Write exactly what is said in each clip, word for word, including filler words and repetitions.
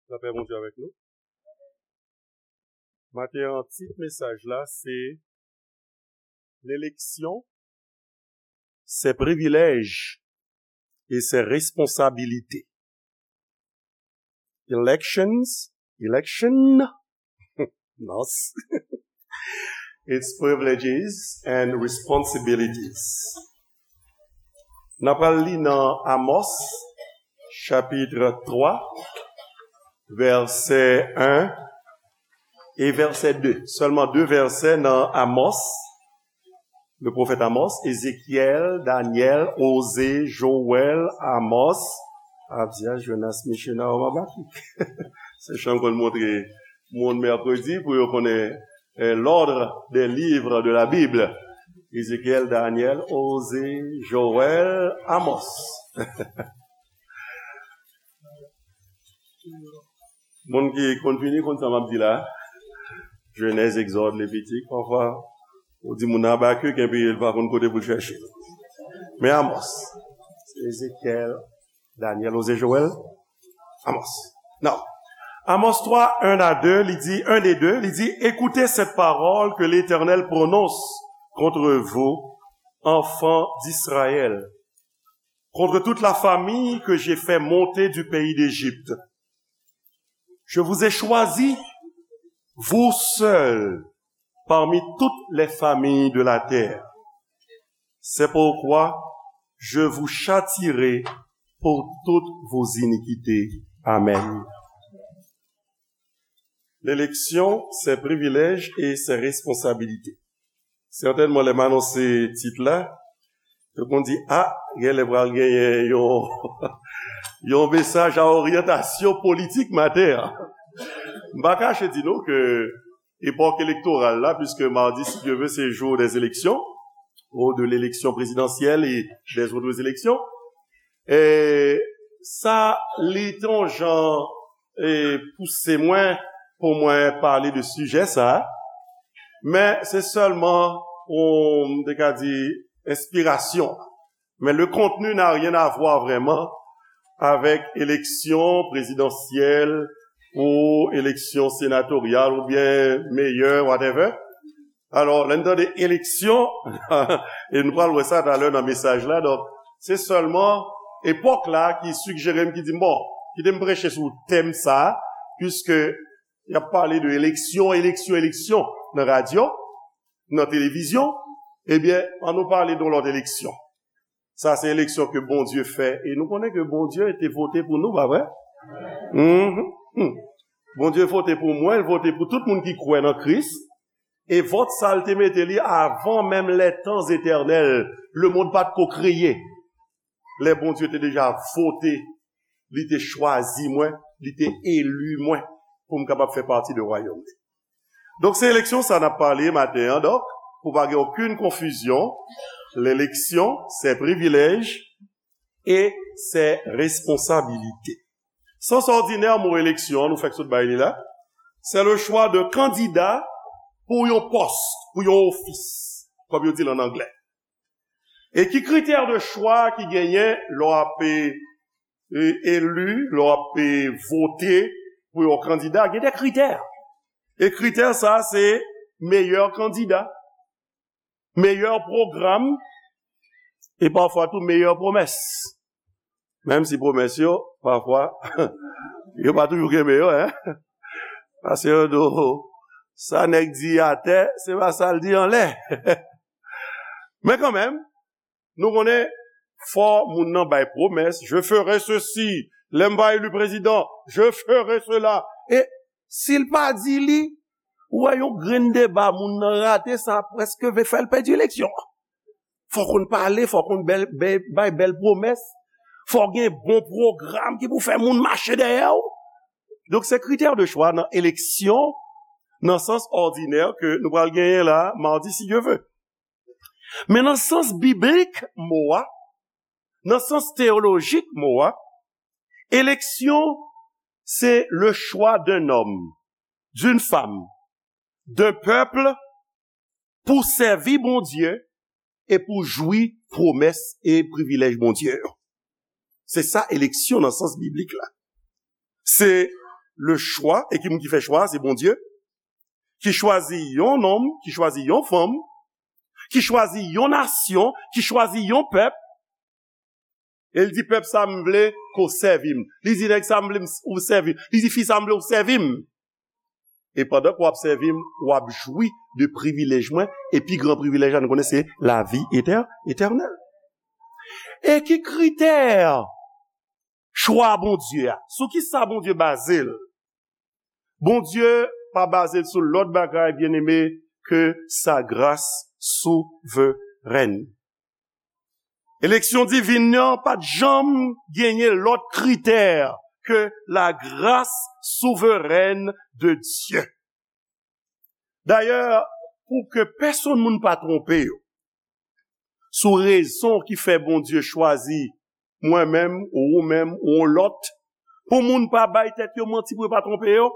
Lapè Bondye avèk nou. Maten an, tit mesaj la, se L'élection, ses privilèges et ses responsabilités. Elections, election, nos. Its privileges and responsibilities. N ap pral li nan Amos, chapit twa, vèsè en e vèsè de. Sèlman de vèsè nan Amos, le pwofèt Amos, Ezekyèl, Danyèl, Oze, Jowèl, Amos, Abdya, Jonas, Michena, Obabakik. Se chan konn montre moun mèkredi pou yo konnen eh, l'ordre des livres de la Bible. Ezekyèl, Danyèl, Oze, Jowèl, Amos. Moun ki konn fini, konn sa m ap di la. Jenèz, Egzòd, Levitik, pafwa, ou di moun nan Abakik, enpi l pa konn kote pou l chèche. Men Amos, Ezekyèl, Danyèl, Oze, Jowèl, Amos. Non. Amos twa, en a de, li di, en e de, li di, écoutez cette parole que l'Éternel prononce contre vous, enfants d'Israël, contre toute la famille que j'ai fait monter du pays d'Égypte. Je vous ai choisi, vous seuls, parmi toutes les familles de la terre. C'est pourquoi je vous châtierai pour toutes vos iniquités. Amen. L'élection, ses privilèges et ses responsabilités. Sètènman, lè m anonse tit la, yo konn di, a, genlè pral genyen yon, yon mesaj a oryantasyon politik maten an. M pa kache di nou ke epòk elektoral la, puisque mardi, si Dieu veut, c'est jour des élections, ou de l'élection présidentielle et des autres élections. E sa, li te yon jan, e, pouse mwen pou mwen pale de sijè sa, men se sèlman yon, m te ka di, enspirasyon. Mais le contenu n'a rien à voir vraiment avec élection présidentielle ou élection sénatoriale ou bien mayor, whatever. Alò, lè n tande eleksyon, e nou pral wè sa talè nan mesaj la, donk, se sèlman epòk la ki sigjere m, ki di m, bon, kite m preche sou tèm sa, puiske y ap pale de eleksyon, eleksyon, eleksyon nan radyo, nan televizyon, ebyen, ann nou pale de yon lòt eleksyon. Sa se eleksyon ke Bondye fè. E nou konnen ke Bondye te vote pou nou, pa vre? Mhm. Hmm. Bondye vote pou mwen, l vote pou tout moun ki kwè nan Kris. E vòt sa, l te mete li avan menm les temps éternels. Lemonn pa t ko kreye. Lè Bondye te deja vote, li te chwazi mwen, li te eli mwen pou m kapab fè pati de wayòm li. Donk, se eleksyon sa n ap pale maten an. Donk, pou pa gen okenn konfizyon, l'élection, ses privilèges et ses responsabilités. Sans òdinè, mo eleksyon an, nou fèk sot bay li la, c'est le choix de candidat pou yon pòs, pou yon ofis, kòm yo di l an anglè. E ki kritè de chwa ki genyen lè w ap, e, eli, lè w ap, e, vote pou yon kandida? Gen de kritè. E kritè sa, se meyè kandida, meyè pwogram, e pafwa tou meyè pwomès. Menm si pwomès yo, pafwa, yo pa toujou kenbe yo, en. Paske yo di w, sa nèg di atè, se pa sa l di anlè. Men kanmenm, nou konnen, fò moun nan bay pwomès, je ferai ceci, lè m va eli prezidan, je ferai cela. E si l pa di li, ou wè yon grenn deba moun nan rate, sa prèske vle fè l pèdi eleksyon an. Fò w konn pale, fò w konn bèl, bèl, bay bèl pwomès, fò w gen bon pwogram ki pou fè moun mache dèyè w. Donk, se kritè de chwa nan eleksyon, nan sans òdinè ke nou pral genyen la, madi, si Dye vle. Men nan sans biblik mo a, nan sans teyolojik mo a, eleksyon, se le choix d'un homme, d'une femme, d'un peuple pou sèvi Bondye e pou jwi pwomès e privilèj Bondye yo. Se sa eleksyon nan sans biblik la. Se le chwa, e ki moun ki fè chwa a? Se Bondye, ki chwazi yon nonm, ki chwazi yon fanm, ki chwazi yon nasyon, ki chwazi yon pèp, e l di, pèp sa m vle ke w sèvi m. Li di, nèg sa m vle m, ou sèvi m. Li di, fi sa m vle w sèvi m. E pandan ke w ap sèvi m, w ap jwi de privilèj mwen, e pi gran privilèj la, nou konnen se lavi etè-, etènèl. E ki kritè chwa Bondye a? Sou ki sa Bondye baze l? Bondye pa baze l sou lòt bagay, byeneme, ke sa gras souverèn. Eleksyon divin nan pa t janm genyen lòt kritè ke la grâce souveraine de Dieu. Dayè, pou ke pèsonn moun pa twonpe yo sou rezon ki fè Bondye chwazi mwen menm, ou ou menm, ou yon lòt, pou moun pa bay tèt yo manti, pou yo pa twonpe yo,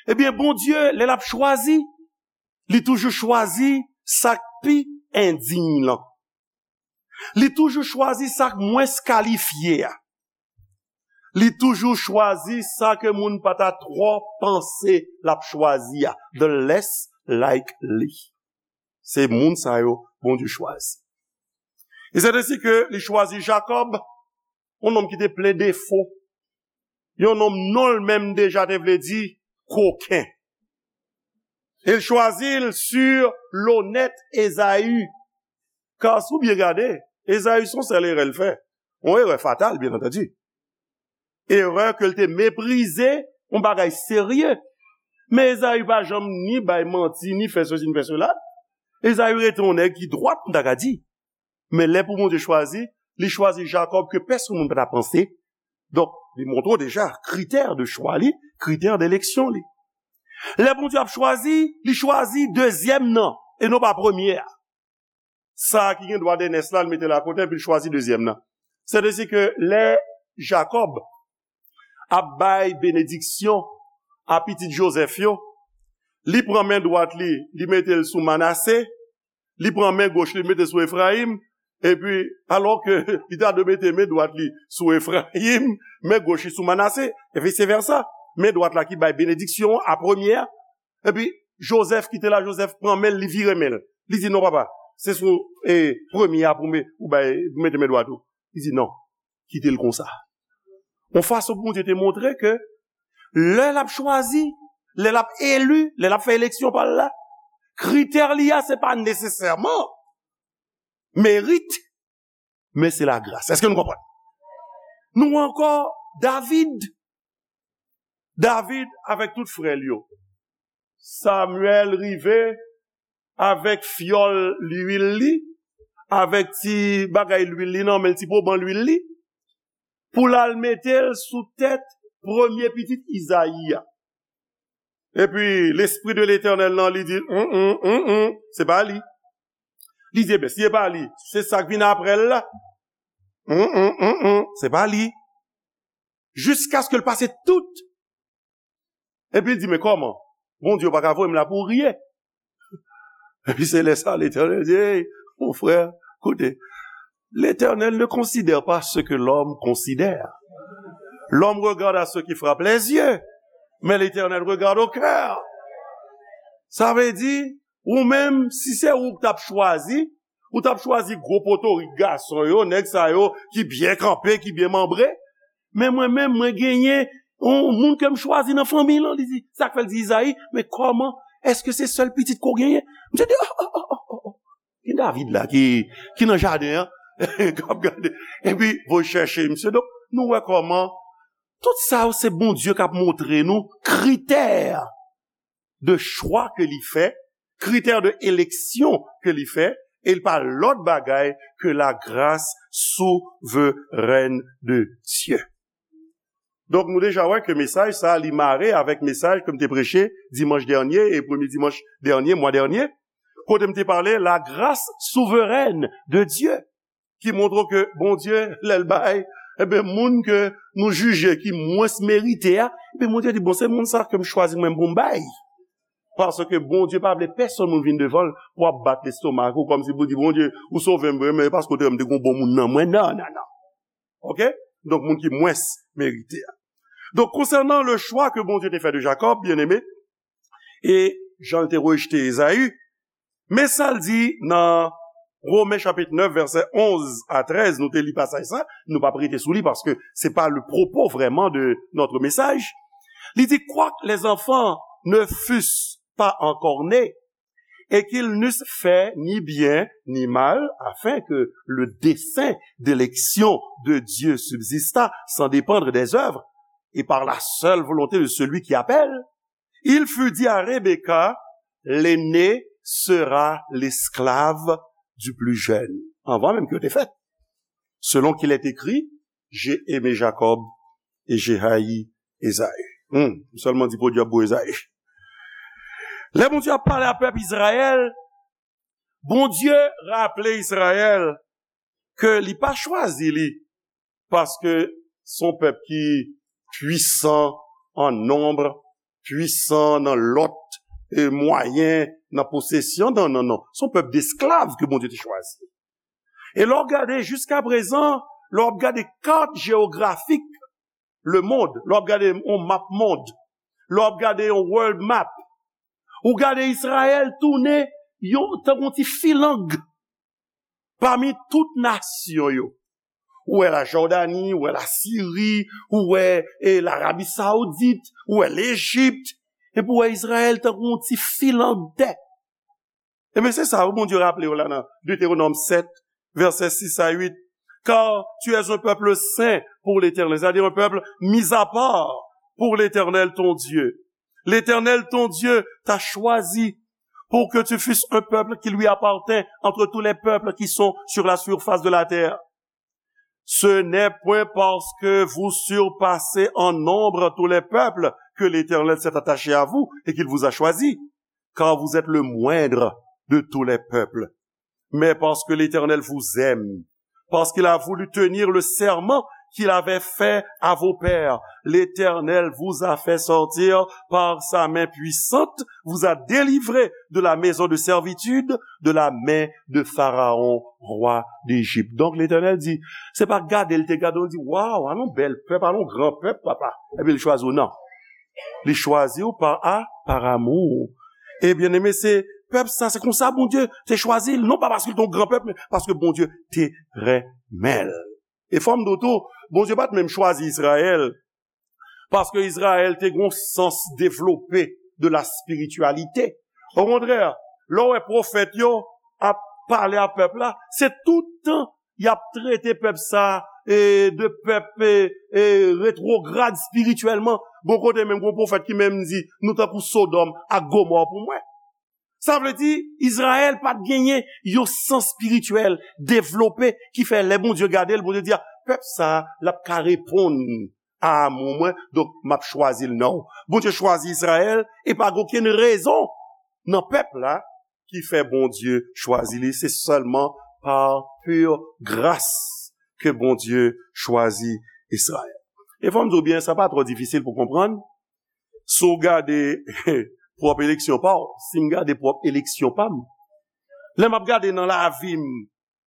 ebyen, Bondye, lè l ap chwazi, li toujou chwazi sa k pi endiy lan. Li toujou chwazi sa k mwens kalifye a. Li toujou chwazi sa ke moun pa ta twò panse l ap chwazi a. The less likely. Se moun sa yo Bondye chwazi. E se ensi ke li chwazi Jakòb, yon nonm ki te plen defo. Yon nonm non l menm deja te vle di koken. E l chwazi l sur l'honnête Esaü. Ka si w byen gade, Esaü se yon sèl erè l fè. Yon erè fatal, byen antandi. Erè ke l te meprize yon bagay serye. Men Esaü pa janm ni bay manti, ni fè sesi, ni fè sela. Esaü rete yon nèg ki dwat, m ta ka di. Men lè pou Bondye chwazi, li chwazi Jakòb ke pèsonn moun pa ta panse. Donk, li montre w deja kritè de chwa li, kritè de eleksyon li. Lè Bondye ap chwazi, li chwazi dezyèm nan, e non pa premye a. Sa a ki gen dwa dèyè nès la, li mete l akote, epi l chwazi dezyèm nan. Sètadi ke lè Jakòb ap bay benediksyon a pitit Jozèf yo, li pran men dwat li, li mete l sou Manase, li pran men goch li, li mete l sou Efrayim, epi, alò ke li ta dwe mete men dwat li sou Efrayim, men goch li sou Manase, e vise vèsa. Men dwat la ki bay benediksyon an a premye a, epi Jozèf ki te la, Jozèf pran men l, li vire men l. Li di, "Non, papa, se sou, e, premye a pou me-, ou bay, pou mete men dwat ou." Li di, "Non, kite l konsa." Yon fason pou Bondye te montre ke lè l ap chwazi, lè l ap eli, lè l ap fè eleksyon pa l la, kritè li a, se pa nesesèman merit, men se lagras. Èske nou konprann? Nou wè ankò David. David avèk tout frè l yo. Samyèl rive avèk fyòl lwil li, avèk ti bagay lwil li nan men l, ti poban lwil li, pou l al mete l sou tèt premye pitit Izayi a. Epi, Lespri de Letènèl nan, li di l, "Mm, mm, mm, mm, se pa li." Li di, "Ebyen, si se pa li, se sa k vin apre l la. Mm, mm, mm, mm, se pa li." Jiskaske l pase tout. Epi l di, "Men kòman? Bondye pa ka voye m la pou rye." Epi se lè sa, Letènèl di, "Ey, mon frè, koute, Letènèl ne considère pas ce que l'homme considère. L'homme regarde à ce qui frappe les yeux, mais l'Éternel regarde au cœur." Sa vle di, ou menm, si se ou k t ap chwazi, ou t ap chwazi gwo potorik gason yo, nèg sa yo ki byen kanpe, ki byen manbre. Men mwen menm, mwen genyen yon moun ke m chwazi nan fanmi lan. Li di, sa k fè l di Izayi, "Men kòman, èske se sèl pitit ke w genyen?" Misye di, "Oh, oh, oh, oh, oh, oh. Gen David la ki, ki nan jaden an, k ap gade." Epi, voye chèche misye. Donk, nou wè kòman tout sa yo se Bondye k ap montre nou kritè de chwa ke li fè, kritè de eleksyon ke li fè, e l pa lòt bagay ke la grâce souveraine de Dieu. Donk, nou deja wè ke mesaj sa a, li mare avèk mesaj ke m te preche dimanch dènye e premye dimanch dènye, mwa dènye, kote m te pale la grâce souveraine de Dieu. Ki montre ke Bondye, lè l bay, ebyen, moun ke nou jije ki mwens merite a, ebyen, Bondye di, "Bon, se moun sa ke m chwazi mwen pou m bay." Paske Bondye pa vle pèsonn moun vin devan l pou ap bat lestomak ou kòmsi pou di, "Bondye, ou sove m vre, men e paske w te wè m te gen yon bon moun nan mwen." Non, non, non. Oke? Donk, moun ki mwens merite a. Donk, konsènan le chwa ke Bondye te fè de Jakòb, byeneme, e jan l te rejte Ezayi, men sa l di nan Women chapit nèf, vèsè onz a trèz, nou te li pasaj sa, nou p ap rete sou li paske se pa le propos vraiment de notre message. Li di, quoique les enfants ne fussent pas encore nés, et qu'ils n'eussent fait ni bien ni mal, afin que le dessein d'élection de Dieu subsistât sans dépendre des œuvres, et par la seule volonté de celui qui appelle, il fut dit à Rebecca, l'aîné sera l'esclave du plus jeune. Anvan menm ke yo te fèt. Selon qu'il est écrit, j'ai aimé Jacob et j'ai haï Esaü. Hmm, m sèlman di podyab pou Ezayi. Lè Bondye ap pale a pèp Izrayèl, Bondye raple Izrayèl ke li pa chwazi li paske se yon pèp ki pwisan an nonb, pwisan nan lòt e mwayen, nan posesyon, non, non, non. Se yon pèp desklav ke Bondye te chwazi. E lè w gade jiska prezan, lè w ap gade kat jewografik lemonn, lè w ap gade yon map mond, lè w ap gade yon world map, ou gade Izrayèl tounen yon, tankou yon ti filang pami tout nasyon yo. Ou wè la Jòdani, ou wè la Siri, ou wè e, Larabi Saoudit, ou wè Lejip, epi ou wè Izrayèl tankou yon ti filang tè. Ebyen, se sa, wi, Bondye raple yo la nan Deutéronome sept, versets six à huit. Car tu es un peuple saint pour l'Éternel, c'est-à-dire un peuple mis à part pour l'Éternel ton Dieu. L'Éternel ton Dieu t'a choisi pour que tu fusses un peuple qui lui appartient entre tous les peuples qui sont sur la surface de la terre. Ce n'est point parce que vous surpassez en nombre tous les peuples que l'Éternel s'est attaché à vous et qu'il vous a choisi, car vous êtes le moindre de tous les peuples. Mais parce que l'Éternel vous aime, parce qu'il a voulu tenir le serment qu'il avait fait à vos pères, l'Éternel vous a fait sortir par sa main puissante, vous a délivré de la maison de servitude, de la main de Pharaon, roi d'Égypte. Donk, Letènèl di, se pa gade l te gade, l di, waw, alon bèl pèp, alon gran pèp, papa. Epi l chwazi w, non. Li chwazi w pa a, par amour. E byeneme, se pèp sa, se konsa Bondye te chwazi l, non pa paske l te yon gran pèp, men paske Bondye te renmen l. E fò m di w tou, Bondye pa t menm chwazi Izrayèl, paske Izrayèl te gen yon sans devlope de la spiritualité. Okontrè, lè w wè pwofèt yo ap pale a pèp la, se tout tan y ap trete pèp sa e, de pèp e, e, retwograd espirityèlman. Gon kote menm gon pwofèt ki menm di, nou tankou Sodòm ak Gomò pou mwen. Sa vle di, Izrayèl pa t genyen yon sans espirityèl devlope ki fè lè Bondye gade l, Bondye di, a, pèp sa a, l ap ka reponn a amou mwen, donk m ap chwazi l, non. Bondye chwazi Izrayèl e pa gen okenn rezon nan pèp la ki fè Bondye chwazi li. Se sèlman pa pure grâce ke Bondye chwazi Izrayèl. E fò m di w byen, sa pa twò difisil pou konprann. Si w gade pwòp eleksyon pa w, si m gade pwòp eleksyon pa m, lè m ap gade nan lavi m,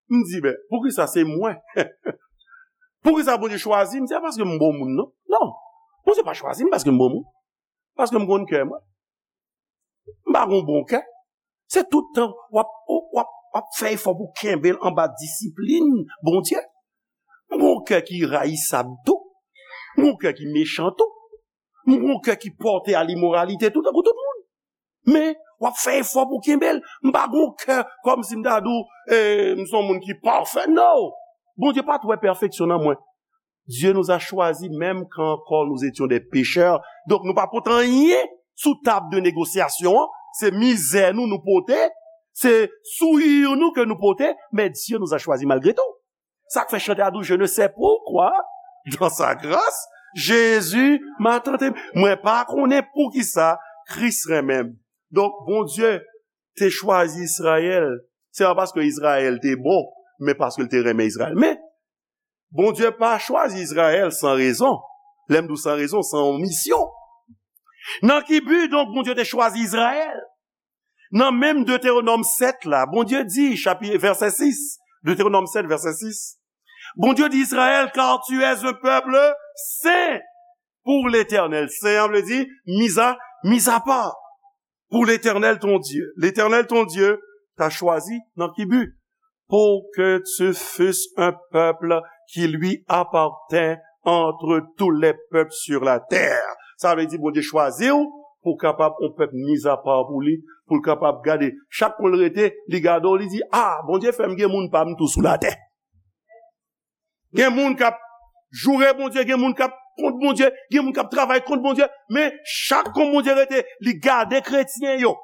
m di, ben, poukisa se mwen? Poukisa Bondye chwazi m? Se pa paske m bon moun, non. Non. Bondye pa chwazi m paske m bon moun. Paske m konn kè mwen. M pa gon bon kè. Se tout tan w ap, w ap, w ap fè efò pou kenbe l anba disiplin Bondye. M gon kè ki rayisab tou. M gon kè ki mechan tou. M gon kè ki pòte a limoralite tou, tankou tout moun. Men, w ap fè efò pou kenbe l. M pa gon kè kòmsi m ta di w, e, m se yon moun ki pafè. No! Bondye pa t wè pèfeksyon nan mwen. Dieu nous a choisis même quand encore nous étions des pécheurs. Donk, nou pa pot anyen sou tab de negosyasyon an. Se mizè nou nou pote. Se souri nou ke nou pote. Mais Dieu nous a choisis malgré tout. Sa k fè chante a di w, je ne sais pourquoi, dans sa grâce, Jésus m'a tant aimé. Mwen pa konnen poukisa Kris renmen m. Donk, Bondye te chwazi Izrayèl, se pa paske Izrayèl te bon, men paske l te renmen Izrayèl. Men, Bondye pa chwazi Izrayèl san rezon. Lè m di w san rezon, san yon misyon. Nan ki bi, donk, Bondye te chwazi Izrayèl? Nan menm Deutéronome sept la, Bondye di, chapi-, vèsè sis, Deutéronome sept, vèsè sis, Bondye di Izrayèl, car tu es un peuple saint. pour l'Éternel. Sen an vle di, mis à, mis à part. Pour l'Éternel ton Dieu. L'Éternel ton Dieu t'a choisi nan ki bi? Pour que tu fusses un peuple qui lui appartient entre tous les peuples sur la terre. Sa vle di Bondye chwazi w pou w kapab yon pèp mis à part pou li, pou l kapab gade. Chak kon l rete, li gade w, li di, "Ah, Bondye fè m gen moun pa m tou sou latè." Gen moun k ap joure Bondye, gen moun k ap kont Bondye, gen moun k ap travay kont Bondye, men chak kon Bondye rete, li gade kretyen yo,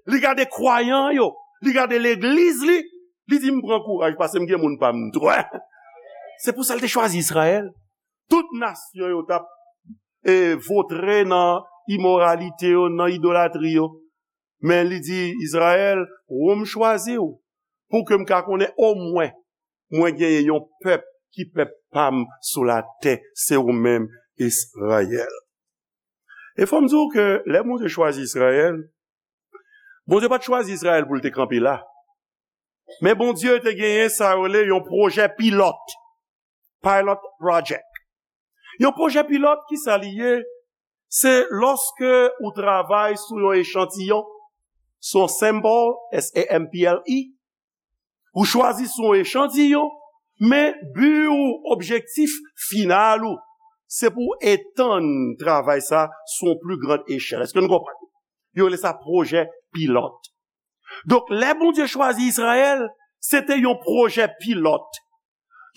li gade kwayan yo, li gade legliz li, li di, "M pran kouraj, paske m gen moun pa m tou." Se pou sa l te chwazi Izrayèl. Tout nasyon yo t ap, e, votre nan imoralite yo, nan idolatri yo. Men li di, "Izrayèl, ou m chwazi w, pou ke m ka konnen omwen, mwen genyen yon pèp ki pèp pa m sou latè, se ou menm, Izrayèl." E fò m di w ke lè Bondye chwazi Izrayèl, Bondye pa t chwazi Izrayèl pou l te kanpe la. Men Bondye te genyen sa yo rele yon pwojè pilòt. Pilot project. Yon pwojè pilòt, ki sa li ye? Se lòske ou travay sou yon echantiyon, sou yon sample, S A M P L E, ou chwazi sou yon echantiyon, men bi ou, objektif final ou, se pou w etann travay sa sou yon pli grand echèl. Èske nou konprann? Yo rele sa pwojè pilòt. Donk, lè Bondye chwazi Izrayèl, se te yon pwojè pilòt.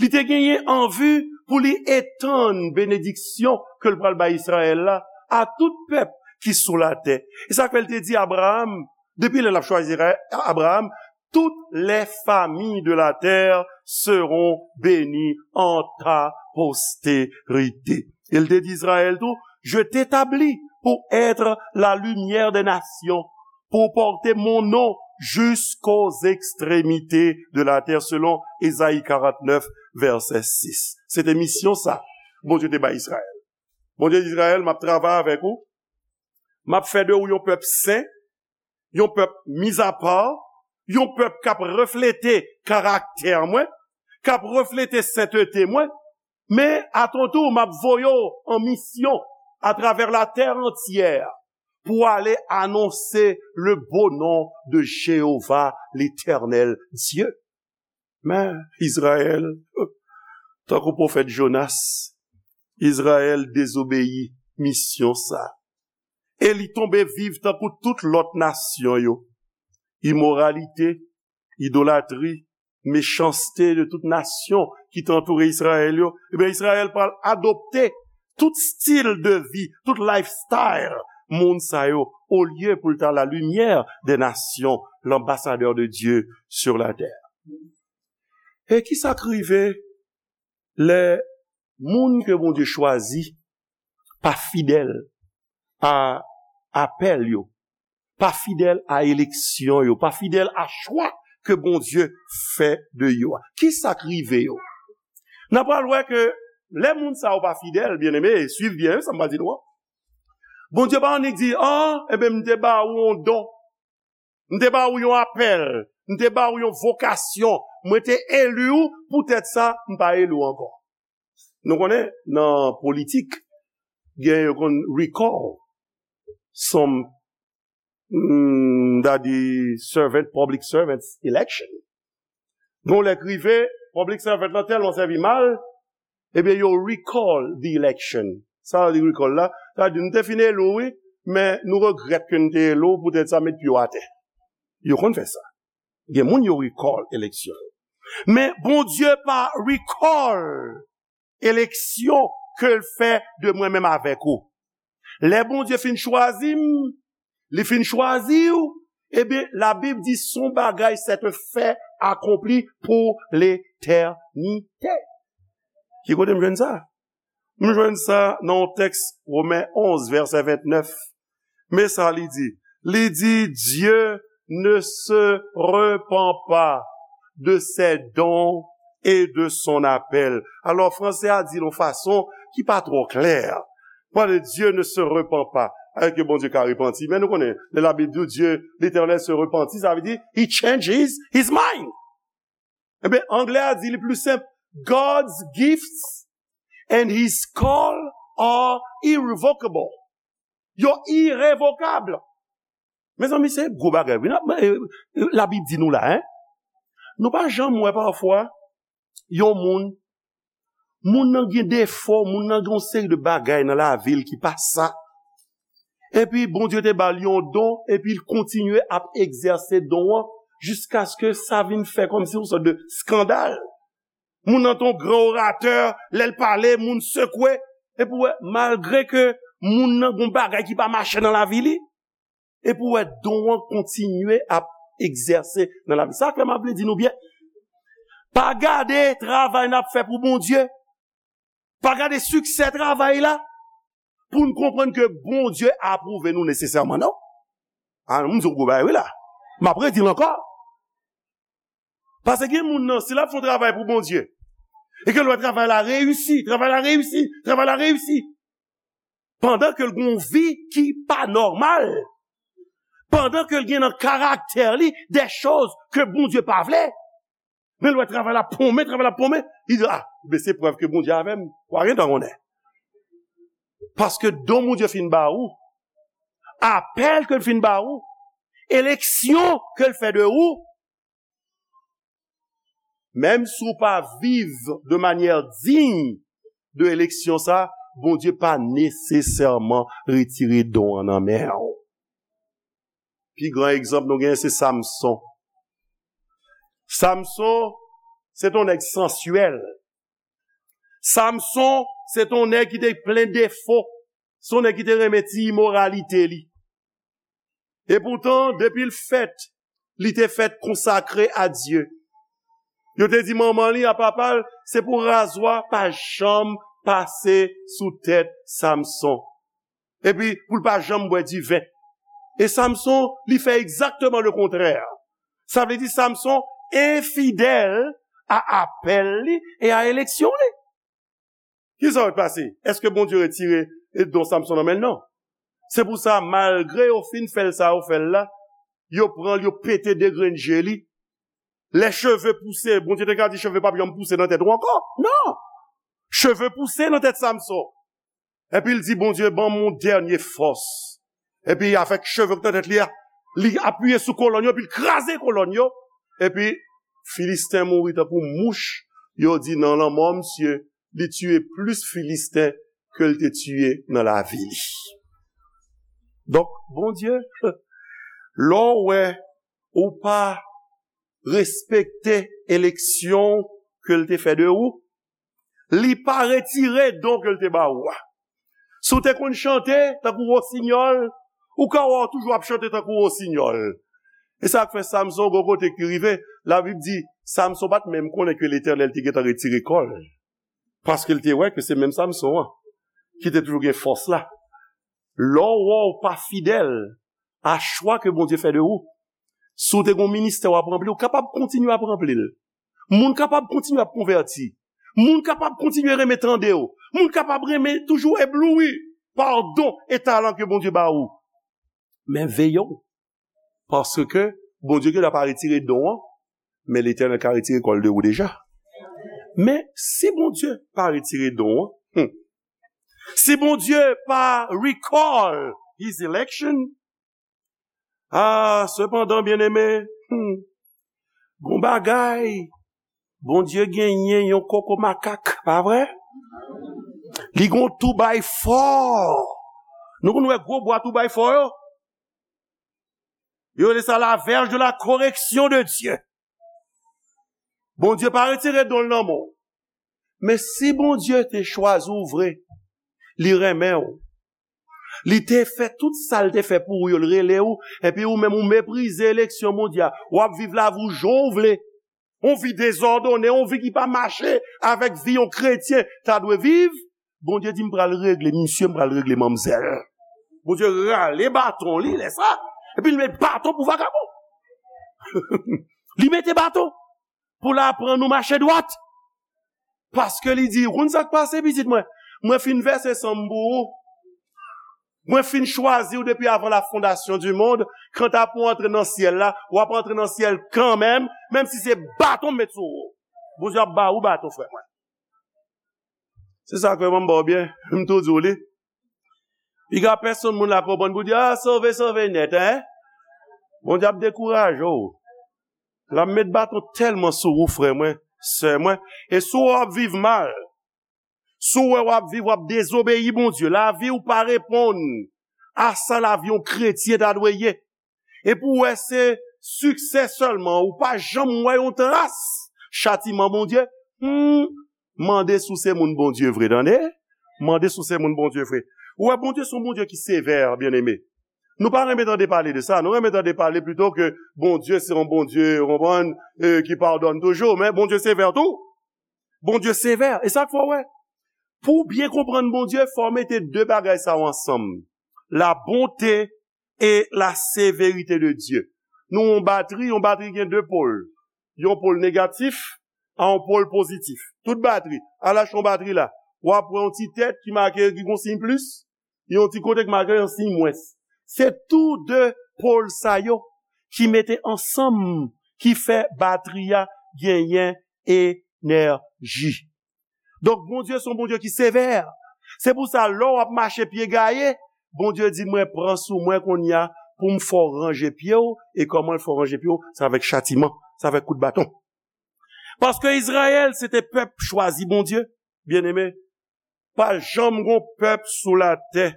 Li te genyen an vi pou li etann benediksyon ke l pral bay Izrayèl la a tout pèp ki sou latè. E sa k fè l te di Abraram, depi lè l ap chwazi Abraram, toutes les familles de la terre seront bénies en ta postérité. E l te di Izrayèl tou, je t'établis pour être la lumière des nations, pour porter mon nom jusqu'aux extrémités de la terre, selon Ezayi karant nèf, vèsè sis. Se te misyon sa Bondye te bay Izrayèl. Bondye di Izrayèl, "M ap travay avèk ou, m ap fè de ou yon pèp sen, yon pèp mis à part, yon pèp k ap reflete karaktè mwen, k ap reflete sentete mwen, men atontou m ap voye w an misyon atravè latè antyè pou ale anonse le beau nom de Jéhovah, l'Éternel Dieu." Men Izrayèl, tankou pwofèt Jonas, Izrayèl dezobeyi misyon sa. E li tonbe viv tankou tout lòt nasyon yo. Imoralite, idolatri, mechanste de tout nasyon ki te antoure Izrayèl yo. Ebyen, Izrayèl pral adopte tout stil de vi, tout lifestyle moun sa yo, olye pou l ta la lumière des nations, l'ambassadeur de Dieu sur la terre. E ki sa k rive lè moun ke Bondye chwazi pa fidèl a apèl yo, pa fidèl a eleksyon yo, pa fidèl a chwa ke Bondye fè de yo a? Ki sa k rive yo? N a pral wè ke lè moun sa yo pa fidèl, byeneme, swiv byen sa m pral di nou an. Bondye pa annik di, "Ah, enben, m te ba ou yon don. M te ba ou yon apèl. M te ba ou yon vokasyon. Mwen te eli ou, poutèt sa, m pa eli w ankò." Nou konnen, nan politik, gen yo konn recall some, mm, m ta di servant, public servants election. Bon, lè k rive, public servant lan tèlman sèvi mal, ebyen, yo recall the election. Sa vle di recall la, sa vle di, "Nou te fin eli w, wi, men nou regrèt ke nou te eli w, poutèt sa, met pye w atè." Yo konn fè sa. Gen moun yo recall eleksyon yo. Men Bondye pa recall eleksyon ke l fè de mwen menm avèk ou. Lè Bondye fin chwazi m, li fin chwazi w, ebyen, Labib di, "Son bagay, c'est un fait accompli pour l'éternité." Ki kote m jwenn sa? M jwenn sa nan yon tèks Women onz, vèsè vennèf. Men sa li di. Li di, Dieu ne se repent pas de ses dons et de son appel. Alò, fransè a di l yon fason ki pa twò klè. Pale, Dieu ne se repent pas. Alò ke Bondye ka repanti. Men nou konnen, lè Labib di w, Dieu, l'Éternel se repentit, sa vle di, he changes his mind. Ebyen, anglè a di li pli senp, God's gifts and his call are irrevocable. Yo irevokab. Mezanmi, se gwo bagay wi. N ap, e, e, Labib di nou la, en. Nou pa janm wè pafwa yon moun, moun nan gen defo, moun nan gen yon seri de bagay nan lavi l ki pa sa. Epi Bondye te ba l yon don, epi l kontinye ap egzèse don an jiskaske sa vin fè kòmsi yon sòt de eskandal. Moun nan te yon gran oratè, lè l pale, moun sekwe. Epi w wè, malgre ke moun nan gen yon bagay ki pa mache nan lavi li, epi w wè don an kontinye ap egzèse nan lavi. Sa fè m ap vle di nou byen, pa gade travay n ap fè pou Bondye, pa gade siksè travay la, pou n konprann ke Bondye apwouve nou nesesèman, non. A, m di w gwo bagay wi la. M ap redi l ankò. Paske gen moun nan, si l ap fè yon travay pou Bondye, e ke l wè travay la reyisi, travay la reyisi, travay la reyisi, pandan ke l gen yon vi ki pa nòmal, pandan ke l gen nan karaktè li de choz ke Bondye pa vle, men l wè travay la ponmen, travay la ponmen, li di, "A, men se prèv ke Bondye avè m." W a gentan konnen. Paske don Bondye fin ba ou, apèl ke l fin ba ou, eleksyon ke l fè de ou, menm si w pa viv de manyè diy de eleksyon sa, Bondye pa nesesèman retire don an nan men w. Pi gran egzanp nou genyen se Samson. Samson, se t on nèg sansyèl. Samson, se t on nèg ki te plen defo. Se on nèg ki te renmen ti imoralite li. Epoutan, depi l fèt, li te fèt konsakre a Dye. Yo te di manman li, a papa l, se pou razwa pa janm pase sou tèt Samson. Epi, pou l pa janm bwè diven. E Samson, li fè egzakteman le kontrè. Sa vle di Samson enfidèl a apèl li e a eleksyon li. Kisa k pase? Èske Bondye retire don Samson nan men l? Non. Se pou sa, malgre yo fin fè l sa yo fè l la, yo pran l, yo pete de grenn je li. Lè cheve pouse, Bondye te ka di cheve p ap janm pouse nan tèt ou ankò. Non! Cheve pouse nan tèt Samson. Epi l di, "Bondye, ban m yon dènye fòs." Epi avèk cheve k nan tèt li a, li apiye sou kolòn yo, epi l kraze kolòn yo. Epi Filisten mouri tankou mouch. Yo di, "Nan lanmò misye, li tiye plis Filisten ke l te tiye nan lavi li." Donk, Bondye, lè w wè ou pa respekte eleksyon ke l te fè de ou, li pa retire don ke l te ba ou a. Si w te konn chante tankou wosinyòl, ou ka wè w toujou ap chante tankou wosinyòl. E sa k fè Samson, gwo kote ki rive, Labib di, Samson pa t menm konnen ke Letènèl te gentan retire kò l. Paske l te wè ke se menm Samson an ki te toujou gen fòs la. Lè w wè w pa fidèl a chwa ke Bondye fè de ou, si w te gen yon ministè w ap ranpli, ou kapab kontinye ap ranpli l. Moun kapab kontinye ap konvèti. Moun kapab kontinye renmen tande w. Moun kapab renmen toujou ebloui pa don e talan ke Bondye ba ou. Men veye w. Paske Bondye genlè pa retire don an, men Letènèl ka retire kò l de ou deja. Men si Bondye pa retire don an, hmm, si Bondye pa recall his election, ah, sepandan, byeneme, hmm, gon bagay, Bondye genyen yon koko makak, pa vre? Li gon tou bay fò. Nou konn wè gwo bwa tou bay fò yo? Yo rele sa la verge de la correction de Dieu. Bondye pa retire don l nan men w. Men si Bondye te chwazi w vre, li renmen w. Li te fè tout sa l te fè pou ou yo, l rele w, epi ou menm ou meprize eleksyon Bondye a. W ap viv lavi w jan w vle. Yon vi dezòdone, yon vi ki pa mache avèk vi yon kretyen ta dwe viv. Bondye di, "M pral regle misye, m pral regle manmzèl." Bondye rale baton li lè sa, epi l met baton pou vagabon. Li mete baton pou l aprann ou mache dwat. Paske li di, "Ou konn sa k pase, pitit mwen? Mwen fin vèse san m pou ou. Mwen fin chwazi w depi avan la fondasyon di mond. Kanta pou w antre nan syèl la, w ap antre nan syèl kanmenm, menm si se baton m met sou ou." Bondye ap ba ou baton, frè mwen. Se sa k fè m ba w byen, m tou di w li. Piga pèsonn moun la konprann pou di, a, sove, sove nèt, en? Bondye ap dekouraje w. L ap met baton tèlman sou ou, frè mwen, sè mwen. E si w ap viv mal, si w wè w ap viv, w ap dezobeyi Bondye, lavi w pa reponn a sa lavi yon kretyen ta dwe ye. Epi w wè se siksè sèlman, ou pa janm wè yon tras chatiman Bondye, hmm, mande si w se moun Bondye vre, tande? Mande si w se moun Bondye vre. Ou wè, Bondye se yon Bondye ki sevè, byeneme. Nou pa renmen tande pale de sa. Nou renmen tande pale pito ke Bondye se yon Bondye, ou konprann, eh, ki padone toujou. Men Bondye sevè tou. Bondye sevè. E sa k fè w wè. Pou w byen konprann Bondye, fò w mete de bagay sa yo ansanm. La bonté et la sévérité de Dieu. Nou yon batri, yon batri gen de pòl. Yon pòl negatif, a yon pòl pozitif. Tout batri, al achte yon batri la, w ap wè yon ti tèt ki make, ki gon siy plis, yon ti kote ki make yon siy mwens. Se tou de pòl sa yo ki mete ansanm, ki fè batri a genyen enèji. Donk, Bondye se yon Bondye ki sevè. Se pou sa, lè w ap mache pye gaye, Bondye di, mwen pran sou mwen kounye a pou m fè w ranje pye w, e kòman l fè w ranje pye w? Se avèk chatiman, se avèk kout baton. Paske Izrayèl, se te pèp chwazi Bondye, byeneme. Pa janm gon pèp sou latè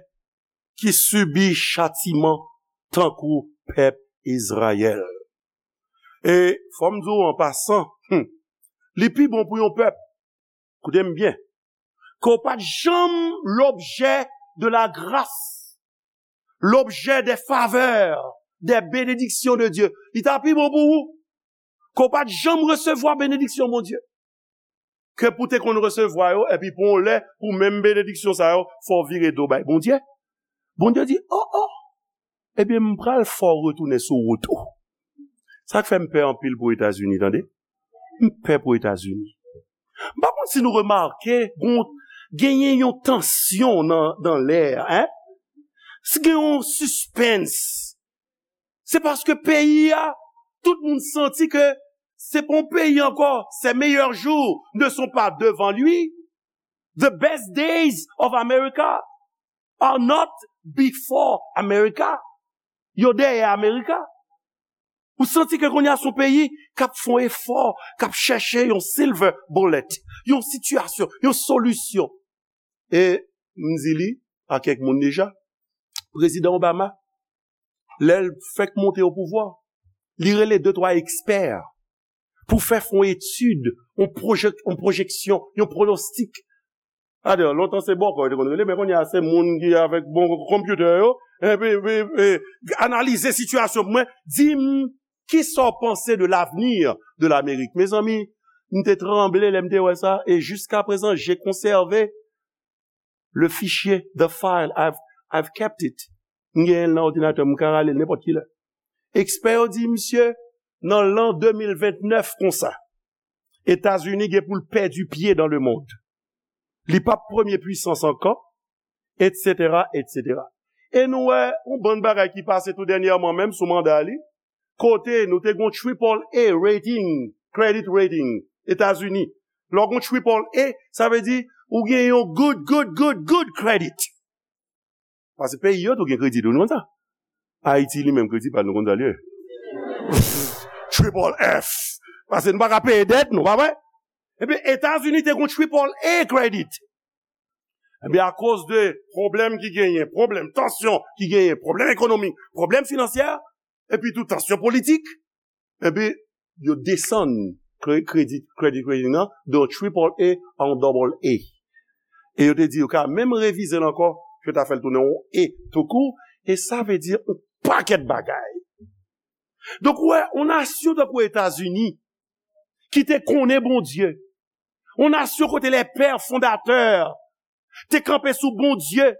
ki sibi chatiman tankou pèp Izrayèl. E fò m di w an pasan, hmm, li pi bon pou yon pèp, koute m byen, ke w pa t janm lobjè de la grâce, lobjè des faveurs, des bénédictions de Dieu. Li ta pi bon pou ou ke w pa t janm resevwa benediksyon Bondye. Ke pou te konn resevwa yo, epi pou yon lè, pou menm benediksyon sa yo, fò w vire do bay Bondye. Bondye di, o, o, ebyen, m pral fè w retounen sou wout ou. Sa k fè m pè anpil pou Etazini, tande. M pè pou Etazini. M pa konn si nou remake, gon, genyen yon tansyon nan, nan lè a, en? Si gen yon sispens, se paske peyi a, tout moun santi ke se pa yon peyi ankò, ses meilleurs jours ne sont pas devant lui. The best days of America are not before America. Yo dèyè America. Ou santi ke kounye a se yon peyi k ap fè yon efò, k ap chèche yon silver bullet, yon sitiyasyon, yon solisyon. E m di li a kèk moun deja, Prezidan Obama, lè l fèk monte o pouvwa, li rele de twa ekspè pou fè fè yon etid, yon pwojek-, yon pwojeksyon, yon pwonostik. Adè, lontan se bòkò yo te konn rele, men kounye a se moun ki avèk bon konpyitè yo, epi, epi, epi analize sitiyasyon pou mwen, di m, kisa w panse de l'avenir de l'Amérique? Mezanmi, m te tranble lè m te wè sa, e jiska prezan, j'ai conservé le fichier, the file, I've, I've kept it. M genyen l nan òdinatè m, m ka rale l nenpòt ki lè. Ekspè yo di, misye, nan lan de mil vennèf konsa, Etazini gen pou l pèdi pye dans le monde. Li p ap premye pwisans ankò, etsetera, etsetera. E nou wè yon bann bagay ki pase tou dènyèman, menm sou manda li, kote nou te gon triple A rating, credit rating, Etazini. Lè w gon triple A, sa vle di ou gen yon good, good, good, good credit. Paske peyi yo tou gen kredi tou, nou konn sa. Ayiti li menm kredi pa l, nou konn sa l ye. Triple F. Paske nou pa ka peye dèt nou, pa vre? Epi Etazini te gon triple A credit. Epi akoz de pwoblèm ki genyen, pwoblèm tansyon ki genyen, pwoblèm ekonomik, pwoblèm finansyè, epi tou tansyon politik, epi yo desann kre-, credit, credit rating nan de yon triple A a yon double A. E yo te di yo ka menm revize l ankò, yo ta fè l tounen yon A tou kou, e sa vle di yon pakèt bagay. Donk, ou wè, yon nasyon tankou Etazini, ki te konnen Bondye, yon nasyon kote les pères fondateurs te kanpe sou Bondye,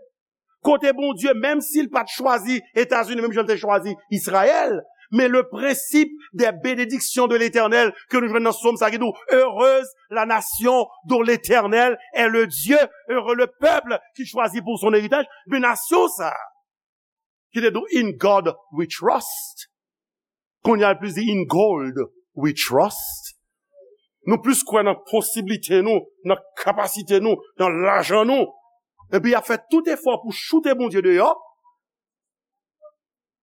kote Bondye, menm si l pa t chwazi Etazini, menm jan l te chwazi Izrayèl, men le principe des bénédictions de l'Éternel ke nou jwenn nan Sòm sa ki di w, heureuse la nation dont l'Éternel est le Dieu, heureux le peuple qu'il choisit pour son héritage, men nasyon sa, ki te di w, in God we trust. Kounye a l plis di, in gold we trust. Nou plis kwè nan posiblite nou, nan kapasite nou, nan lajan nou. Epi y ap fè tout efò pou choute Bondye deyò.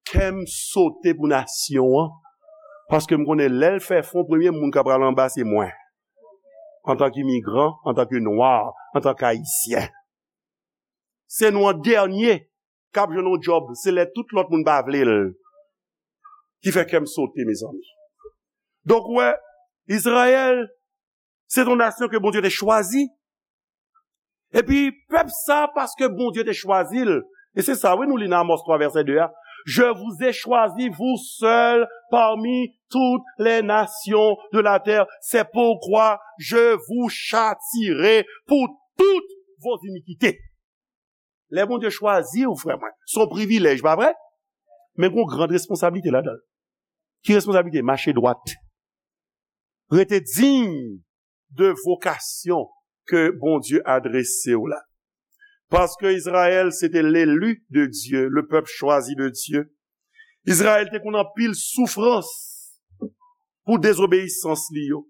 Kè m sote pou nasyon an. Paske m konnen lè l fè fon, premye moun k ap pral anba se mwen. Antanke imigran, antanke nwa, antanke ayisyen. Se nou an dènye k ap jwenn yon djòb, se lè tout lòt moun pa vle l. Ki fè kè m sote, mezanmi. Donk, ou wè, Izrayèl, se yon nasyon ke Bondye te chwazi. Epi, pèp sa, paske Bondye te chwazi l, e se sa, wi, nou li nan Amos twa, vèsè de a, Je vous ai choisi, vous seuls, parmi toutes les nations de la terre. C'est pourquoi je vous châtierai pour toutes vos iniquités. Lè Bondye chwazi w, frè mwen, se yon privilèj, pa vre? Men gen yon gran responsablite ladan l. Ki responsablite? Mache dwat. Rete diy de vokasyon ke Bondye adrese w la. Paske Izrayèl, se te l'élu de Dieu, le peuple choisi de Dieu. Izrayèl te konn anpil soufrans pou dezobeyisans li yo.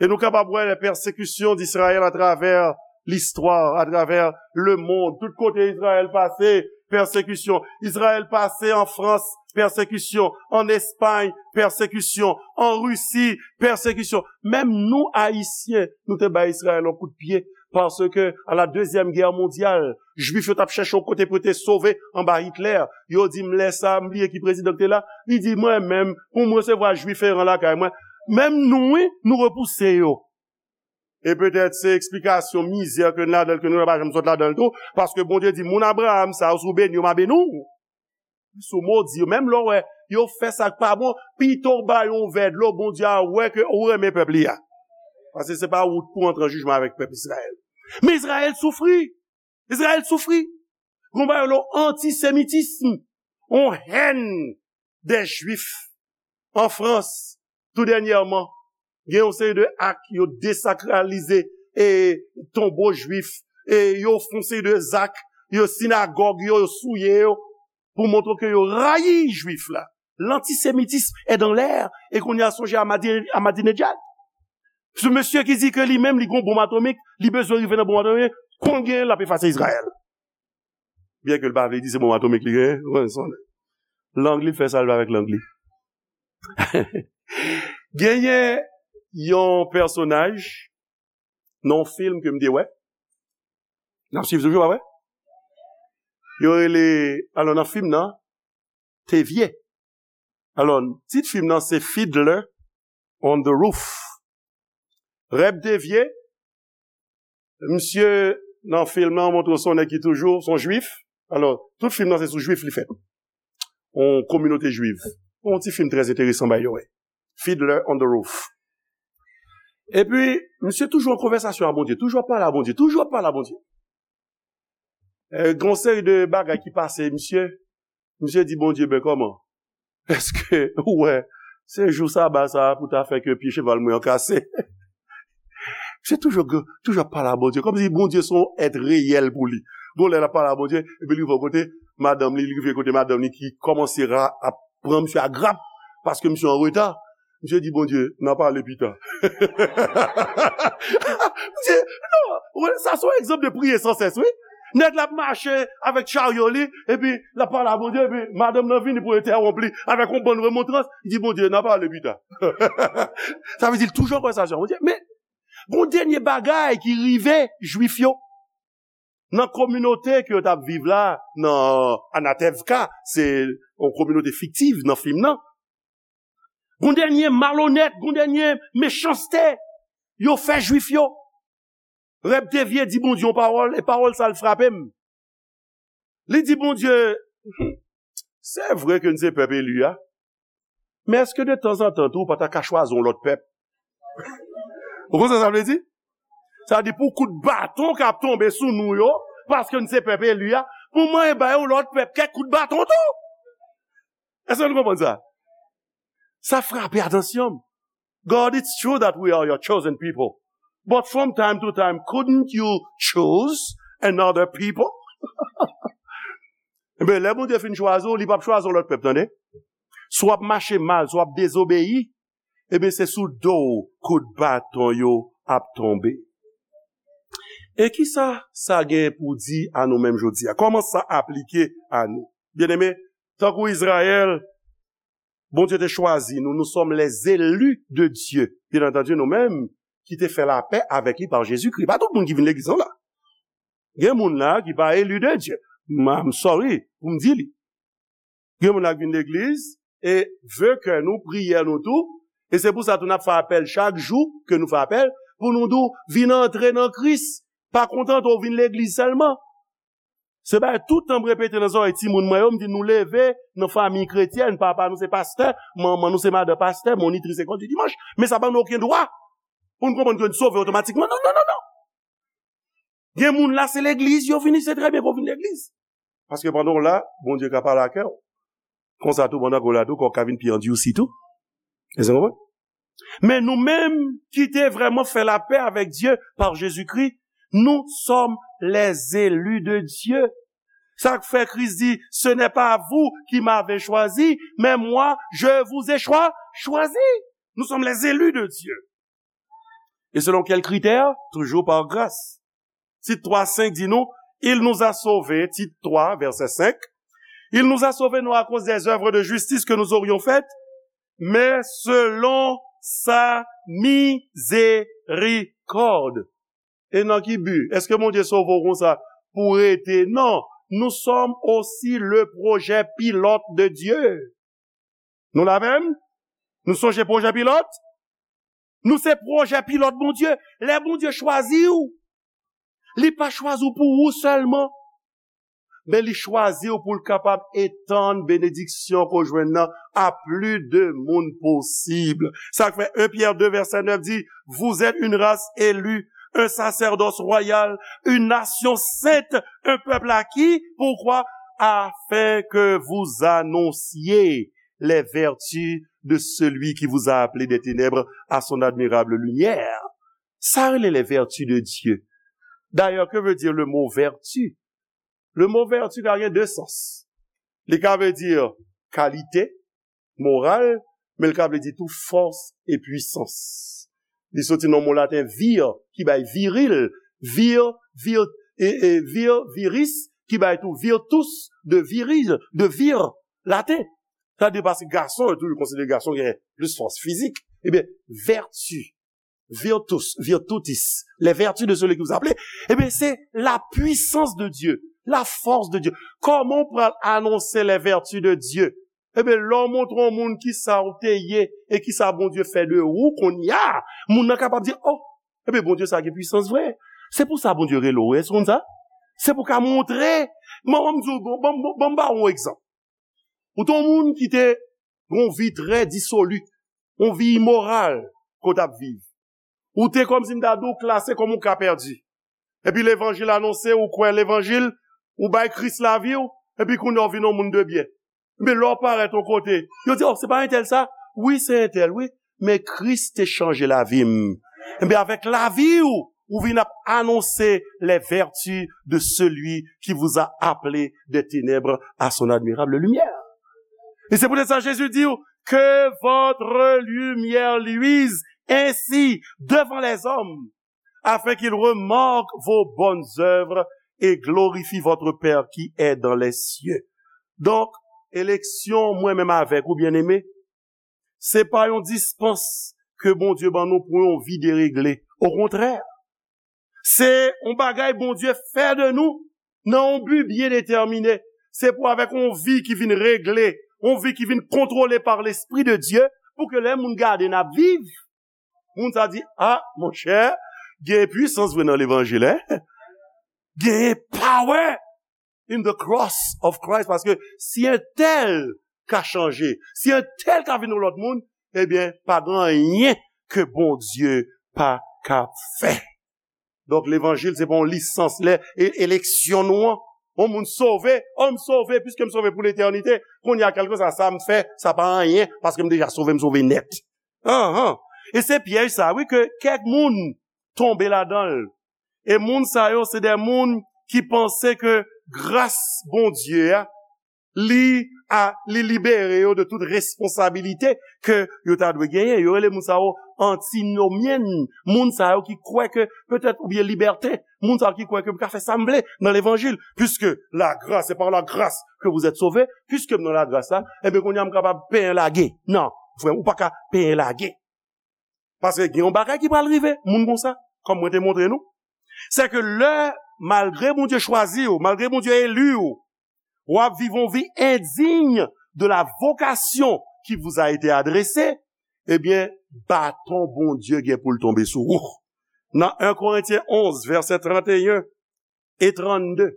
E nou kapab wè lè pèsekisyon d'Izrayèl atravè listwa, atravè lemonn. Tout kote Izrayèl pase, pèsekisyon. Izrayèl pase an Frans, pèsekisyon. An Espay, pèsekisyon. An Risi, pèsekisyon. Menm nou, Ayisyen, nou te bay Izrayèl yon kout pye. Paske, a la Dezyèm Gè Mondyal, Jwif yo t ap chèche yon kote pou yo te sove anba Hitlè. Yo di m lè sa a, m bliye ki prezidan k te la. Li di, mwen menm, pou m resevwa Jwif eran lakay mwen. Menm nou, wi, nou repouse yo. E petèt se eksplikasyon mizè ke n ladan l, ke nou pa janm sot ladan l tou, paske Bondye di, moun Abraham sa yo, si w beni yo, m a beni w. Si w modi yo, menm lè w wè yo fè sa k pa bon, pito w ba yo yon vè dlo, Bondye a wè ke ou renmen pèp li a. Paske se pa ou k pou antre an jijman avèk pèp Izrayèl. Men Izrayèl soufri. Izrayèl soufri. Gon bagay yo rele antisemitism. On hèn dè Jwif an Frans, tou dènyèman, gen yon seri de ak yo desakralize e tonbo Jwif, e yo fè yon seri de zak, yo sinagòg yo, yo souye yo, pou montre ke yo rayi Jwif la. Lantisemitism est dans l'air, e kounye a sonje Ahmadi-, Ahmadinejad. Se mesye ki di ke li menm, li gon bonm atomik, li bezwen rive nan bonm atomik, konn gen, l ap efase Izrayèl. Byen ke l pa vle di se bonm atomik li genyen, ou konn sa. Lang li, l fè sa l vle avèk lang li. Genyen yon pèsonaj nan yon fim ke m te wè. N ap swiv toujou, pa vre? Yo rele, alò nan fim nan, Tevye. Alò, tit fim nan se Fiddler on the Roof. Reb Tevye, misye nan fim nan montre w se yon nèg ki toujou, se yon jwif. Alò, tout fim nan se sou jwif li fèt. Yon kominote jwiv. Yon ti fim trè enteresan, by the way. Fiddler on the Roof. Epi, misye toujou an konvèsasyon a Bondye, toujou ap pale a Bondye, toujou ap pale a Bondye. E, gen yon seri de bagay ki pase, misye, misye di Bondye, ben kòman? Èske ou wè, se jou saba sa a pou ta fè ke pye cheval mwen an kase? Misye toujou, toujou ap pale a Bondye, kòmsi Bondye se yon èt reyèl pou li. Gon lè l ap pale a Bondye, epi li rive yon kote, madanm li, li rive kote madanm li ki kòmanse ra, ap pran misye a grap, paske misye an reta. Misye di Bondye, n a pale pita. Misye, non, sa se yon egzanp de priye san sès, wi. Nèg la ap mache avèk charyo li, epi l ap pale a Bondye, epi madanm nan vini pou entèwonp li avèk yon bann remontrans, li di Bondye, n a pale pita. Sa vle di l toujou an konvèsasyon a Bondye. Men, gon dènye bagay ki rive Jwif yo. Nan kominote ke yo t ap viv la, nan Anatevka, se yon kominote fiktiv nan fim nan. Gon dènye malonèt, gon dènye mechanste yo fè Jwif yo. Reb Tevye di Bondye yon pawòl, e pawòl sa l frape m. Li di Bondye, se vre ke n se pèp eli a, men èske de tanzantan tou ou pa ta ka chwazi yon lòt pèp? Ou konn sa sa vle di? Sa vle di pou kout baton k ap tonbe sou nou yo, paske n se pèp eli a, pou mwen ba yo lòt pèp kèk kout baton tou. Èske nou konprann sa? Sa frape atansyon m. God, it's true that we are your chosen people. But from time to time, couldn't you choose another people? Enben, lè Bondye fin chwazi w, li p ap chwazi yon lòt pèp, tande. Si w ap mache mal, si w ap dezobeyi, ebyen, se sou do w kout baton yo ap tonbe. E kisa sa gen pou di a nou menm jodi a? Kòman sa aplike a nou? Byeneme, tankou Izrayèl, Bondye te chwazi nou, nous sommes les élus de Dieu. Byen antandi, nou menm ki te fè lapè avèk li pa Jezikri. Pa tout moun ki vin legliz lan la. Gen moun la ki pa eli de Dye. M- I'm sorry pou m di li. Gen moun la ki vin legliz e ve kè nou, priyè nou tou. E se pou sa tou n ap fè apèl chak jou ke nou fè apèl pou nou di w vin antre nan Kris. Pa kontante w vin legliz sèlman. Se bagay tout tan m repete nan zòrèy timoun mwen yo, m di nou leve nan fanmi kretyèn, papa nou se pastè, manman nou se madan pastè, monitris lekòl di dimanch, men sa pa ban nou okenn dwa pou n konprann ke n sove otomatikman. Non, non, non, non. Gen moun la, se legliz yo vini, se trè byen pou w vin legliz. Paske pandan w la, Bondye ka pale ak kè w. Konsa tou, pandan ke w la tou, kò w ka vin pi andyousi tou. Èske w konprann? Men nou menm ki te vrèman fè lapè avèk Dye pa Jezikri, nous sommes les élus de Dieu. Sa k fè Kris di, ce n'est pas vous qui m'avez choisi, mais moi, je vous ai choi- choisi. Nous sommes les élus de Dieu. Et selon quel critère? Toujours par grâce. Tit twa senk di nou, il nous a sauvés, Tit twa, vèsè senk, il nous a sauvés non à cause des œuvres de justice que nous aurions faites, mais selon sa miséricorde. E nan ki bi? Èske Bondye sove w konsa pou w rete? Non. Nous sommes aussi le projet pilote de Dieu. Nou la menm? Nou sonje pwojè pilòt? Nou se pwojè pilòt Bondye. Lè Bondye chwazi w, li pa chwazi w pou ou sèlman, men li chwazi w pou l kapab etann benediksyon ke w jwenn nan a plis de moun posib. Sa k fè en Pyè de vèsè nèf di, vous êtes une race élue, un sacerdoce royal, une nation sainte, un peuple acquis. Pourquoi? Afin que vous annonciez les vertus de celui qui vous a appelé des ténèbres à son admirable lumière. Sa rele les vertus de Dieu. D'ailleurs, que veut dire le mot vertu? Le mot vertu ka gen de sans. Li ka vle di kalite, moral, men l ka vle di tou fòs e pwisans. Li soti nan mo laten vir, ki bay viril, vir, vir, e, e, vir, viris, ki bay tou virtus, de viril, de vir, laten. Sa vle di paske gason, yo toujou konsidere gason gen plis fòs fizik. Ebyen, vèti, virtus, virtutis, les vertus de celui qui vous a appelé, ebyen, se la puissance de Dieu, la force de Dieu. Kòman w pral anonse les vertus de Dieu? Ebyen, lè w montre yon moun ki sa w te ye e ki sa Bondye fè de ou kounye a, moun nan kapab di, oh, ebyen, Bondye sa gen pwisans vre. Se pou sa Bondye rele w, èske w konn sa? Se pou w ka montre. Ban m di w, ban m ba w yon egzanp. Ou te yon moun ki te gen yon vi trè disoli, yon vi imoral ke w t ap viv. Ou te kòmsi m ta di w klase kòm yon ka pèdi. Epi levanjil anonse, ou kwè levanjil, ou bay Kris lavi w, epi kounye a w vin yon moun de byen. Men lè w parèt yon kote, yo di, oh, se pa entèl sa? Wi, se entèl, wi. Men Kris te chanje lavi m. Ebyen, avèk lavi w, ou vin ap anonse les vertus de celui qui vous a appelé des ténèbres à son admirable lumière. Et c'est peut-être ça Jésus dit, que votre lumière luise ainsi devant les hommes, afin qu'ils remarquent vos bonnes œuvres et glorifient votre Père qui est dans les cieux. Donk, eleksyon mwen menm avèk ou, byeneme, se pa yon dispans ke Bondye ban nou pou yon vi deregle. Okontrè, se yon bagay Bondye fè de nou nan yon bi byen detèmine. Se pou avèk yon vi ki vin regle, yon vi ki vin kontwole pa Lespri de Dye, pou ke lè moun gade n ap viv, moun sa di, ah, monchè, gen pwisans vre nan levanjil, en. Gen power in the cross of Christ, paske si entèl ka chanje, si entèl ka vin yon lòt moun, ebyen, pa gen anyen ke Bondye pa ka fè. Donk, levanjil, se pa yon lisans, lè e- eleksyon nou an. Yon moun sove, oh, m sove, piske m sove pou letènite. Kounye a, kèlkeswa sa m fè, sa pa anyen, paske m deja sove, m sove nèt. Anhan. E se pyèj sa, wi, ke kèk moun tonbe ladan l. E moun sa yo, se de moun ki panse ke gras Bondye a, li a, li libere yo de tout responsabilite ke yo ta dwe genyen. Yo rele moun sa yo antinomyen, moun sa yo ki kwè ke petèt, oubyen libèten, moun sa yo ki kwè ke m ka fè sa m vle nan levanjil, puisque la grâce, c'est par la grâce que vous êtes sauvés, puisque m nan lagras la, ebyen kounye a m kapab penyen lage. Non, frè, ou pa ka penyen lage. Paske gen yon bagay ki pral rive, moun konsa, kòm mwen te montre nou. Se ke lè, malgre Bondye chwazi w, malgre Bondye eli w, w ap viv yon vi endiy de la vocation qui vous a été adressée, ebyen, baton Bondye gen pou l tonbe sou ou. Nan en Korentyen onz, vèsè trannteyen e trannde,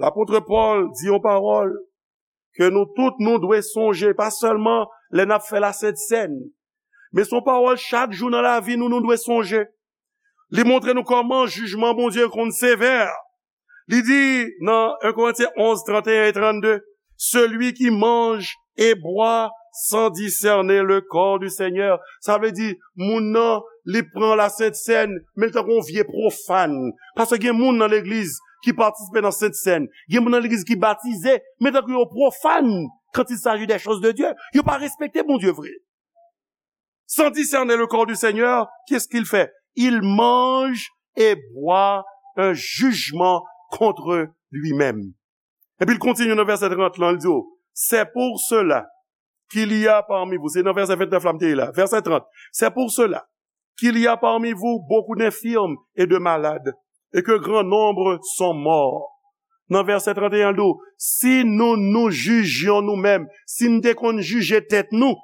lapot Pòl di yon pawòl ke nou tout nou dwe sonje, pa sèlman lè n ap fè Lasent Sèn, men se yon pawòl chak jou nan lavi nou, nou dwe sonje. Li montre nou kòman jijman Bondye konn sevè. Li di nan en Korentyen onz, trannteyen e trannde, celui qui mange et boit sans discerner le corps du Seigneur. Sa vle di, moun nan, li pran Lasent Sèn, men li tankou yon vye pwofàn. Paske gen moun nan legliz ki patisipe nan Sent Sèn. Gen moun nan legliz ki batize, men tankou yo pwofàn quand il s'agit des choses de Dieu. Yo pa respekte Bondye vre. Sans discerner le corps du Seigneur, qu'est-ce qu'il fait? Il mange et boit un jugement contre lui-même. Epi l kontinye nan vèsè trant lan, l di w, c'est pour cela qu'il y a parmi vous, se nan vèsè ventnèf la m te ye la, vèsè trant, c'est pour cela qu'il y a parmi vous beaucoup d'infirmes et de malades, et que grand nombre sont morts. Nan vèsè trannteyen, l di w, si nou nou jijyon nou menm, si n te konn jije tèt nou,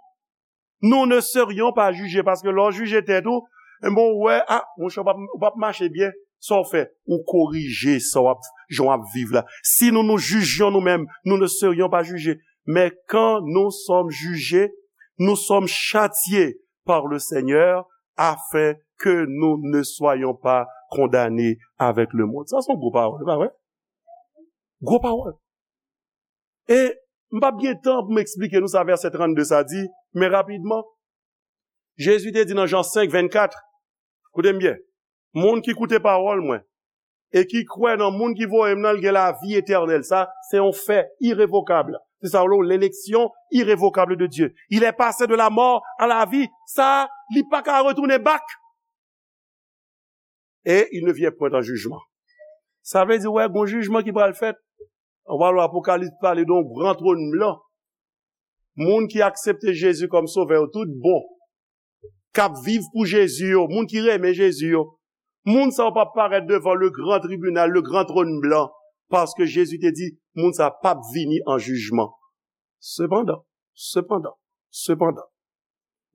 nous ne serions pas jugés, paske lè w jije tèt ou, enben, w wè, a, monchè, w p ap, w p ap mache byen, sa w fè, ou korije sa w ap, jan w ap viv la. Si nous nous jugions nous-mêmes, nous ne serions pas jugés. Mais quand nous sommes jugés, nous sommes châtiés par le Seigneur, afin que nous ne soyons pas condamnés avec le monde. Sa se yon gwo pawòl, e pa vre? Gwo pawòl. E m p ap gen tan pou m eksplike nou sa vèsè trannde sa di, men rapidman, Jezi te di nan Jan senk vennkat, koute m byen, moun ki koute pawòl mwen, e ki kwè nan moun ki voye m nan, l gen lavi etènèl. Sa, se yon fè irevokab. Se sa w rele l'élection irrévocable de Dieu. Il est passé de la mort à la vie. Sa, li pa ka retounen back. Et il ne vient point en jugement. Sa vle di, wè, gon jijman ki pral fèt. Ou pa wè Apokalips pale de yon gran twòn blan. Moun ki aksepte Jezi kòm sovè yo tout bon, k ap viv pou Jezi yo, moun ki renmen Jezi yo, moun sa yo p ap parèt devan le gran tribinal, le gran twòn blan, paske Jezi te di, moun sa p ap vini an jijman. Sepandan, sepandan, sepandan,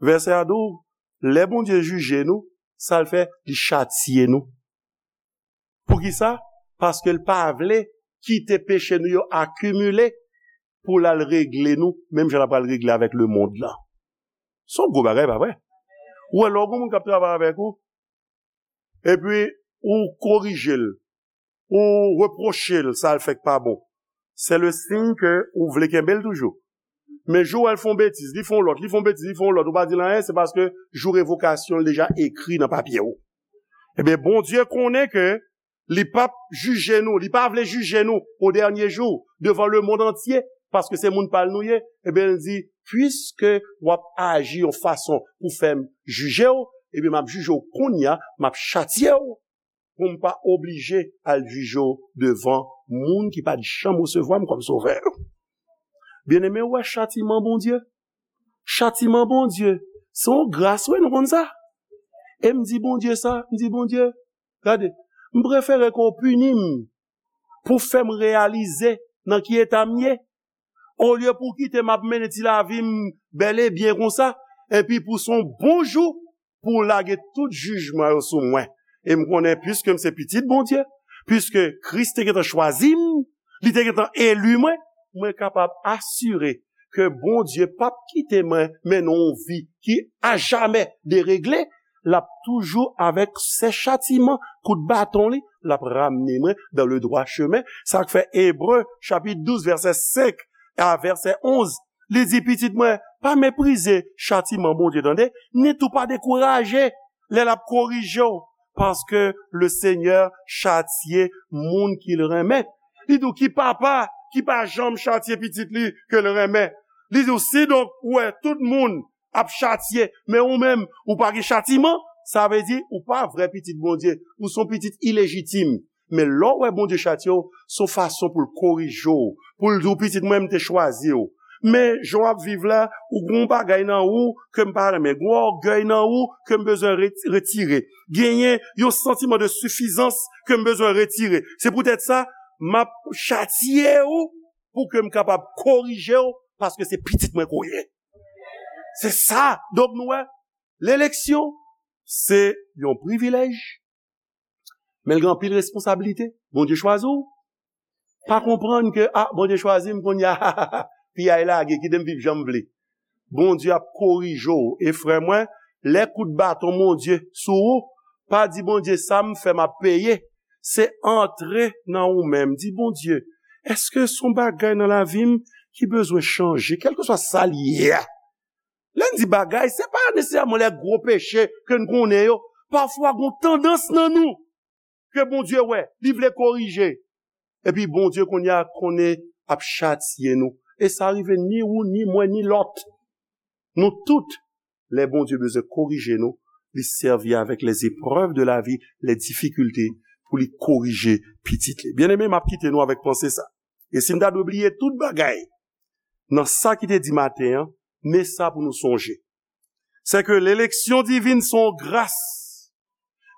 vèsè a di w, lè Bondye jije nou, sa l fè, li chatye nou. Poukisa? Paske l pa vle kite peche nou yo akimile pou l al regle nou, menm jan l ap al regle avèk lemonn lan. Se yon gwo bagay, pa vre? Ou wè, lè w gen yon moun k ap travay avèk ou, epi ou korije l, ou repwoche l, sa l fè k pa bon, se le siy ke ou vle kenbe l toujou. Men jou w wè l fè yon betiz, li fè yon lòt, li fè yon betiz, li fè yon lòt, ou pa di l anyen, se paske jou revokasyon l deja ekri nan papye w. Ebyen, Bondye konnen ke li p ap jije nou, li pa vle jije nou o dènye jou, devan lemonn antye, paske se moun pa l nou ye. Ebyen, l di, piske w ap aji yon fason pou fè m jije w, ebyen, m ap jije w kounye a, m ap chatye w, pou m pa oblije al jije w devan moun ki pa t janm resevwa m kòm sovè. Byeneme, w wè chatiman Bondye? Chatiman Bondye, se yon gras, wi, nou konn sa. E m di Bondye sa, m di, Bondye, gade, m prefere ke w pini m pou fè m reyalize nan ki eta m ye, olye pou w kite m ap mennen ti lavi m bèl e byen konsa, epi pou se yon bon jou pou w lage tout jijman yo sou mwen. E m konnen, piske m se pitit Bondye, piske Kris te gentan chwazi m, li te gentan eli mwen, mwen kapab asire ke Bondye p ap kite mwen mennen yon vi ki ajamè deregle, l ap toujou avèk sè chatiman, kout baton li, l ap ramne mwen dans le droit chemin. Sa k fè Ebre, chapit douz, vèsè senk a vèsè onz, li di, pitit mwen, pa meprize chatiman Bondye, tande, ni tou pa dekouraje lè l ap korije w, paske le Senyè chatye moun ki l renmen. Li di w, ki papa ki pa janm chatye pitit li ke l renmen. Li di w, si donk ou wè tout moun ap chatye, men ou menm, ou pa gen chatiman, sa vle di ou pa vrè pitit Bondye, ou se yon pitit ilejitim. Men lè w wè Bondye chatye w, se yon fason pou l korije w, pou l di w, pitit mwen, m te chwazi w. Men jan w ap viv la, ou gen yon bagay nan ou ke m pa renmen, gen yon ògèy nan ou ke m bezwen re- retire. Genyen yon santiman de sifizans ke m bezwen retire. Se poutèt sa, m ap chatye w pou ke m kapab korije w, paske se pitit mwen ke w ye. Se sa. Donk nou wè, leleksyon, se yon privilèj, men l gen anpil responsablite. Bondye chwazi w. Pa konprann ke, a, Bondye chwazi m kounye a, piyay lage, kite m viv jan m vle. Bondye ap korije w. E frè mwen, lè kout baton Bondye sou ou, pa di, Bondye, sa m fè, m ap peye. Se antre nan ou menm. Di, Bondye, èske se yon bagay nan lavi m ki bezwen chanje, kèlkeswa sa l ye a? Lè n di bagay, se pa nesesèman lè gwo peche ke n konnen yo. Pafwa, gen yon tandans nan nou ke Bondye wè, li vle korije. Epi Bondye kounye a konnen ap chatye nou. E sa rive ni ou, ni mwen, ni lòt. Nou tout, lè Bondye bezwen korije nou, li sèvi avèk les épreuves de la vie, les difficultés, pou li korije pitit li. Byeneme, m ap kite nou avèk panse sa. E si m ta dwe bliye tout bagay nan sa ki te di maten an, men sa pou nou sonje. Se ke leleksyon divin se yon gras.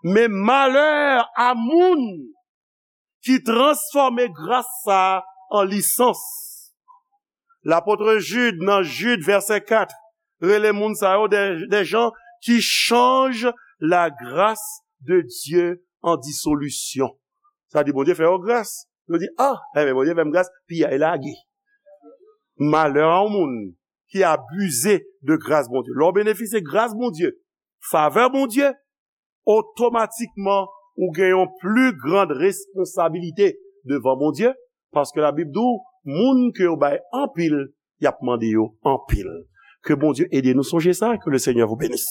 Men malè a moun ki transfòme gras sa a an lisans. Lapot Jid, nan Jid, vèsè kat, rele moun sa yo de, de jan ki chanj la grâce de Dieu en dissolution. Sa di, Bondye fè yo gras. Yo di, a, enben, Bondye fè m gras, piyay lage. Malè a yon moun ki abize de gras Bondye. Lè w benefisye gras Bondye, favè Bondye, otomatikman, ou gen yon pli grand responsabilite devan Bondye, paske Labib di w, moun ke yo bay anpil, y ap mande yo anpil. Ke Bondye ede nou sonje sa, que le Seigneur vous bénisse.